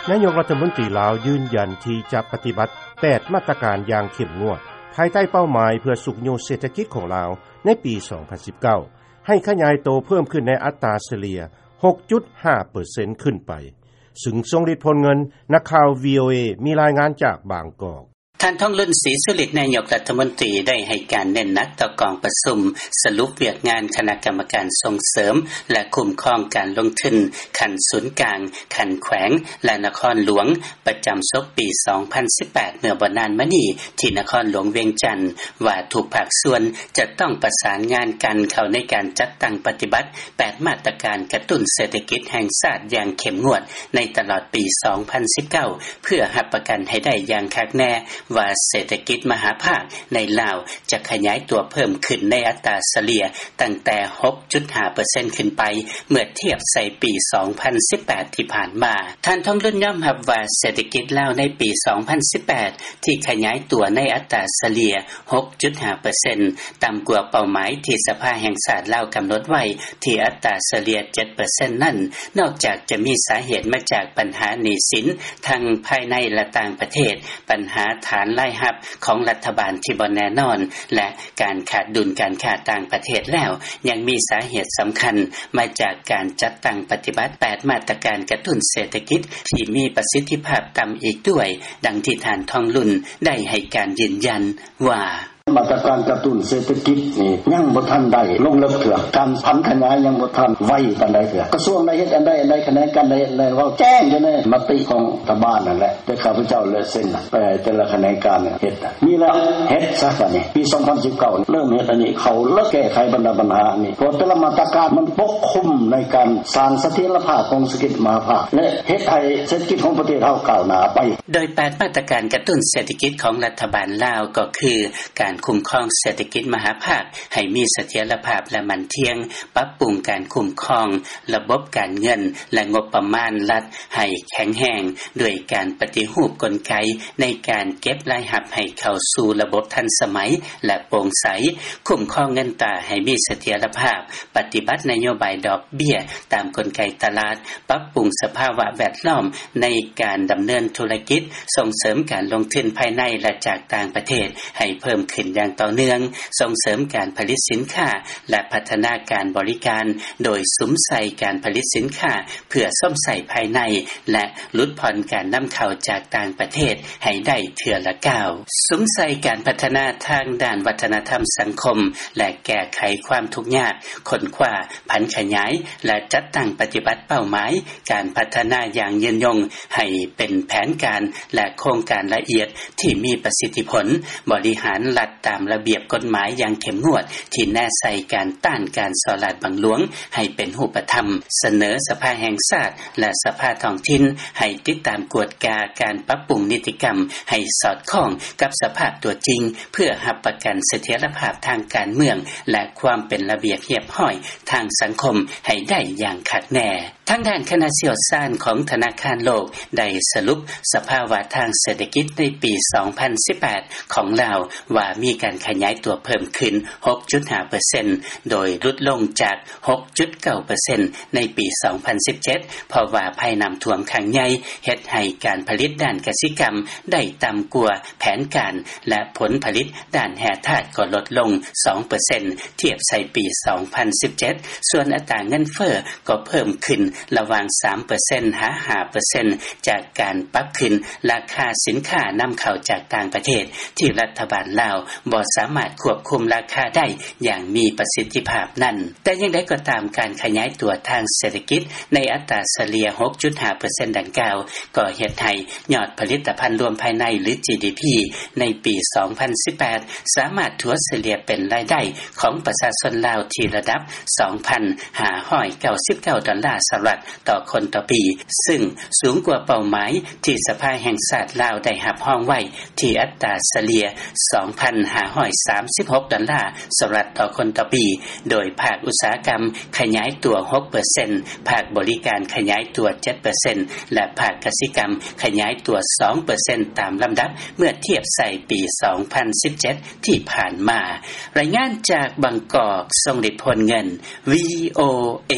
ນາຍົກລັດຖະມົນຕີລາວ ຢືນຢັນທີ່ຈະປະຕິບັດ ແປດ ມາດຕະການຢ່າງເຂັ້ມງວດ ພາຍໃຕ້ເປົ້າໝາຍເພື່ອຊຸກຍູ້ເສດຖະກິດຂອງລາວ ໃນປີ ສອງພັນສິບເກົ້າ ໃຫ້ຂະຫຍາຍໂຕເພີ່ມຂຶ້ນໃນອັດຕາສະເລ່ຍ ຫົກຈຸດຫ້າເປີເຊັນ ຂຶ້ນໄປ ຊຶ່ງສົ່ງລິດຜົນເງິນ. ນັກຂ່າວ ວີໂອເອ ມີລາຍງານຈາກບາງກອກ. ທ່ານ ທອງລຸນ ສີສຸລິດ ນາຍົກລັດຖະມົນຕີ ໄດ້ໃຫ້ການເນັ້ນໜັກຕໍ່ກອງປະຊຸມສະຫຼຸບວຽກງານຄະນະກຳມະການສົ່ງເສີມ ແລະ ຄຸ້ມຄອງການລົງທຶນ ຂັ້ນສູນກາງ, ຂັ້ນແຂວງ ແລະ ນະຄອນຫຼວງ ປະຈຳສົກປີ ສອງພັນສິບແປດ ເມື່ອບໍ່ນານມານີ້ ທີ່ນະຄອນຫຼວງວຽງຈັນ ວ່າທຸກພາກສ່ວນຈະຕ້ອງປະສານງານກັນເຂົ້າໃນການຈັດຕັ້ງປະຕິບັດ ແປດ ມາດຕະການກະຕຸ້ນເສດຖະກິດແຫ່ງຊາດຢ່າງເຂັ້ມງວດ ໃນຕະຫຼອດປີ ສອງພັນສິບເກົ້າ ເພື່ອຮັບປະກັນໃຫ້ໄດ້ຢ່າງຄັກແນ່ວ່າ ເສດຖະກິດມະຫາພາກໃນລາວ ຈະຂະຫຍາຍຕົວເພີ່ມຂຶ້ນໃນອັດຕາສະເລ່ຍຕັ້ງແຕ່ ຫົກຈຸດຫ້າເປີເຊັນ ຂຶ້ນໄປ ເມື່ອທຽບໃສ່ປີ ສອງພັນສິບແປດ ທີ່ຜ່ານມາ. ທ່ານ ທອງລຸນ ຍອມຮັບວ່າ ເສດຖະກິດລາວໃນປີ ສອງພັນສິບແປດ ທີ່ຂະຫຍາຍຕົວໃນອັດຕາສະເລ່ຍ ຫົກຈຸດຫ້າເປີເຊັນ ຕ່ຳກວ່າເປົ້າໝາຍທີ່ສະພາແຫ່ງຊາດລາວກຳນົດໄວ້ ທີ່ອັດຕາສະເລ່ຍ ເຈັດເປີເຊັນນັ້ນ ນອກຈາກຈະມີສາເຫດມາຈາກບັນຫາໜີ້ສິນ ທັງພາຍໃນ ແລະ ຕ່າງປະເທດ, ບັນຫາຖານລາຍຮັບຂອງລັດຖະບານທີ່ບໍ່ແນ່ນອນ ແລະ ການຂາດດຸນການຄ້າຕ່າງປະເທດແລ້ວ, ຍັງມີສາເຫດສຳຄັນມາຈາກການຈັດຕັ້ງປະຕິບັດ ແປດ ມາດຕະການກະຕຸ້ນເສດຖະກິດທີ່ມີປະສິດທິພາບຕ່ຳອີກດ້ວຍ, ດັ່ງທີ່ທ່ານ ທອງລຸນ ໄດ້ໃຫ້ການຢືນຢັນວ່າ: ມາດຕະການກະຕຸ້ນເສດຖະກິດນີ້ຍັງບໍ່ທັນໄດ້ລົງເລິກເທື່ອ, ການຜັນຂະຫຍາຍຍັງບໍ່ທັນໄວປານໃດເທື່ອ. ກະຊວງໄດ້ເຮັດອັນໃດອັນໃດ, ຂະແໜງການໄດ້ເຮັດອັນໃດ, ເວົ້າແຈ້ງຢູ່ໃນມະຕິຂອງລັດຖະບານນັ້ນແຫຼະ, ແຕ່ຂ້າພະເຈົ້າແຫຼະເຊັນໄປໃຫ້ແຕ່ລະຂະແໜງການເຮັດ. ມີແລ້ວເຮັດຊະບາດນີ້, ປີສອງພັນສິບເກົ້າເລີ່ມເຮັດອັນນີ້, ເຂົ້າແລ້ວແກ້ໄຂບັນດາບັນຫາອັນນີ້, ເພາະແຕ່ລະມາດຕະການມັນປົກຄຸມໃນການສ້າງສະຖຽນລະພາບຂອງເສດຖະກິດມະຫາພາກ ແລະ ເຮັດໃຫ້ເສດຖະກິດຂອງປະເທດເຮົາກ້າວໜ້າໄປ. ໂດຍ ແປດ ມາດຕະການກະຕຸ້ນເສດຖະກິດຂອງລັດຖະບານລາວ ກໍຄື ການຄຸ້ມຄອງເສດຖະກິດມະຫາພາກໃຫ້ມີສະຖຽນລະພາບ ແລະ ໝັ້ນທ່ຽງ, ປັບປຸງການຄຸ້ມຄອງລະບົບການເງິນ ແລະ ງົບປະມານລັດໃຫ້ແຂງແຮງ ດ້ວຍການປະຕິຮູບກົນໄກໃນການເກັບລາຍຮັບໃຫ້ເຂົ້າສູ່ລະບົບທັນສະໄໝ ແລະ ໂປ່ງໃສ, ຄຸ້ມຄອງເງິນຕາໃຫ້ມີສະຖຽນລະພາບ, ປະຕິບັດນະໂຍບາຍດອກເບ້ຍຕາມກົນໄກຕະຫຼາດ, ປັບປຸງສະພາວະແວດລ້ອມໃນການດຳເນີນທຸລະກິດ, ສົ່ງເສີມການລົງທຶນພາຍໃນ ແລະ ຈາກຕ່າງປະເທດໃຫ້ເພີ່ມຂຶ້ນຢ່າງຕໍ່ເນື່ອງ, ສົ່ງເສີມການຜະລິດສິນຄ້າ ແລະ ພັດທະນາການບໍລິການ ໂດຍສຸມໃສ່ການຜະລິດສິນຄ້າເພື່ອຊົມໃຊ້ພາຍໃນ ແລະ ຫຼຸດຜ່ອນການນຳເຂົ້າຈາກຕ່າງປະເທດໃຫ້ໄດ້ເທື່ອລະກ້າວ, ສຸມໃສ່ການພັດທະນາທາງດ້ານວັດທະນະທຳສັງຄົມ ແລະ ແກ້ໄຂຄວາມທຸກຍາກ, ຄົ້ນຄວ້າ, ຜັນຂະຫຍາຍ ແລະ ຈັດຕັ້ງປະຕິບັດເປົ້າໝາຍການພັດທະນາຢ່າງຍືນຍົງໃຫ້ເປັນແຜນການ ແລະ ໂຄງການລະອຽດທີ່ມີປະສິດທິຜົນ, ບໍລິຫານລັດຕາມລະບຽບກົດໝາຍຢ່າງເຂັ້ມງວດ ທີ່ແນໃສ່ການຕ້ານການສໍ້ລາດບັງຫຼວງໃຫ້ເປັນຮູບປະທຳ, ສະເໜີສະພາແຫ່ງຊາດ ແລະ ສະພາທ້ອງຖິ່ນໃຫ້ຕິດຕາມກວດກາການປັບປຸງນິຕິກຳໃຫ້ສອດຄ່ອງກັບສະພາບຕົວຈິງ ເພື່ອຮັບປະກັນສະຖຽນລະພາບທາງການເມືອງ ແລະ ຄວາມເປັນລະບຽບຮຽບຮ້ອຍທາງສັງຄົມໃຫ້ໄດ້ຢ່າງຄັກແນ່. ທາງດ້ານຄະນະຊ່ຽວຊານຂອງທະນາຄານໂລກໄດ້ສະຫຼຸບສະພາວະທາງເສດຖະກິດໃນປີສອງພັນສິບແປດຂອງລາວວ່າມີການຂະຫຍາຍຕົວເພີ່ມຂຶ້ນຫົກຈຸດຫ້າເປີເຊັນ ໂດຍຫຼຸດລົງຈາກຫົກຈຸດເກົ້າເປີເຊັນໃນປີສອງພັນສິບເຈັດ ເພາະວ່າໄພນ້ຳຖ້ວມຄັ້ງໃຫຍ່ເຮັດໃຫ້ການຜະລິດດ້ານກະສິກຳໄດ້ຕ່ຳກວ່າແຜນການ ແລະ ຜົນຜະລິດດ້ານແຮ່ທາດກໍລົດລົງສອງເປີເຊັນ ທຽບໃສ່ປີສອງພັນສິບເຈັດ ສ່ວນອັດຕາເງິນເຟີ້ກໍເພີ່ມຂຶ້ນລະຫວ່າງສາມເປີເຊັນຫາຫ້າເປີເຊັນ ຈາກການປັບຂຶ້ນລາຄາສິນຄ້ານຳເຂົ້າຈາກຕ່າງປະເທດ ທີ່ລັດຖະບານລາວບໍ່ສາມາດຄວບຄຸມລາຄາໄດ້ຢ່າງມີປະສິດທິພາບນັ້ນ. ແຕ່ຢ່າງໃດກໍຕາມ, ການຂະຫຍາຍຕົວທາງເສດຖະກິດໃນອັດຕາສະເລ່ຍຫົກຈຸດຫ້າເປີເຊັນດັ່ງກ່າວ ກໍເຮັດໃຫ້ຍອດຜະລິດຕະພັນລວມພາຍໃນ ຫຼື ຈີດີພີ ໃນປີສອງພັນສິບແປດ ສາມາດຖັວສະເລ່ຍເປັນລາຍໄດ້ຂອງປະຊາຊົນລາວທີ່ລະດັບສອງພັນຫ້າຮ້ອຍເກົ້າສິບເກົ້າດອນລາສະຫະລັດຕໍ່ຄົນຕໍ່ປີ, ຊຶ່ງສູງກວ່າເປົ້າໝາຍທີ່ສະພາແຫ່ງຊາດລາວໄດ້ຮັບຮອງໄວ້ ທີ່ອັດຕາສະເລ່ຍສອງພັນຫ້າຮ້ອຍສາມສິບຫົກດອນລາສະຫະລັດຕໍ່ຄົນຕໍ່ປີ, ໂດຍພາກອຸດສາຫະກຳຂະຫຍາຍຕົວຫົກເປີເຊັນ, ພາກບໍລິການຂະຫຍາຍຕົວເຈັດເປີເຊັນ ແລະ ພາກກະສິກຳຂະຫຍາຍຕົວສອງເປີເຊັນຕາມລຳດັບ ເມື່ອທຽບໃສ່ປີສອງພັນສິບເຈັດທີ່ຜ່ານມາ. ລາຍງານຈາກບາງກອກ, ຊົງລິດ ໂພນເງິນ, ວີໂອເອ.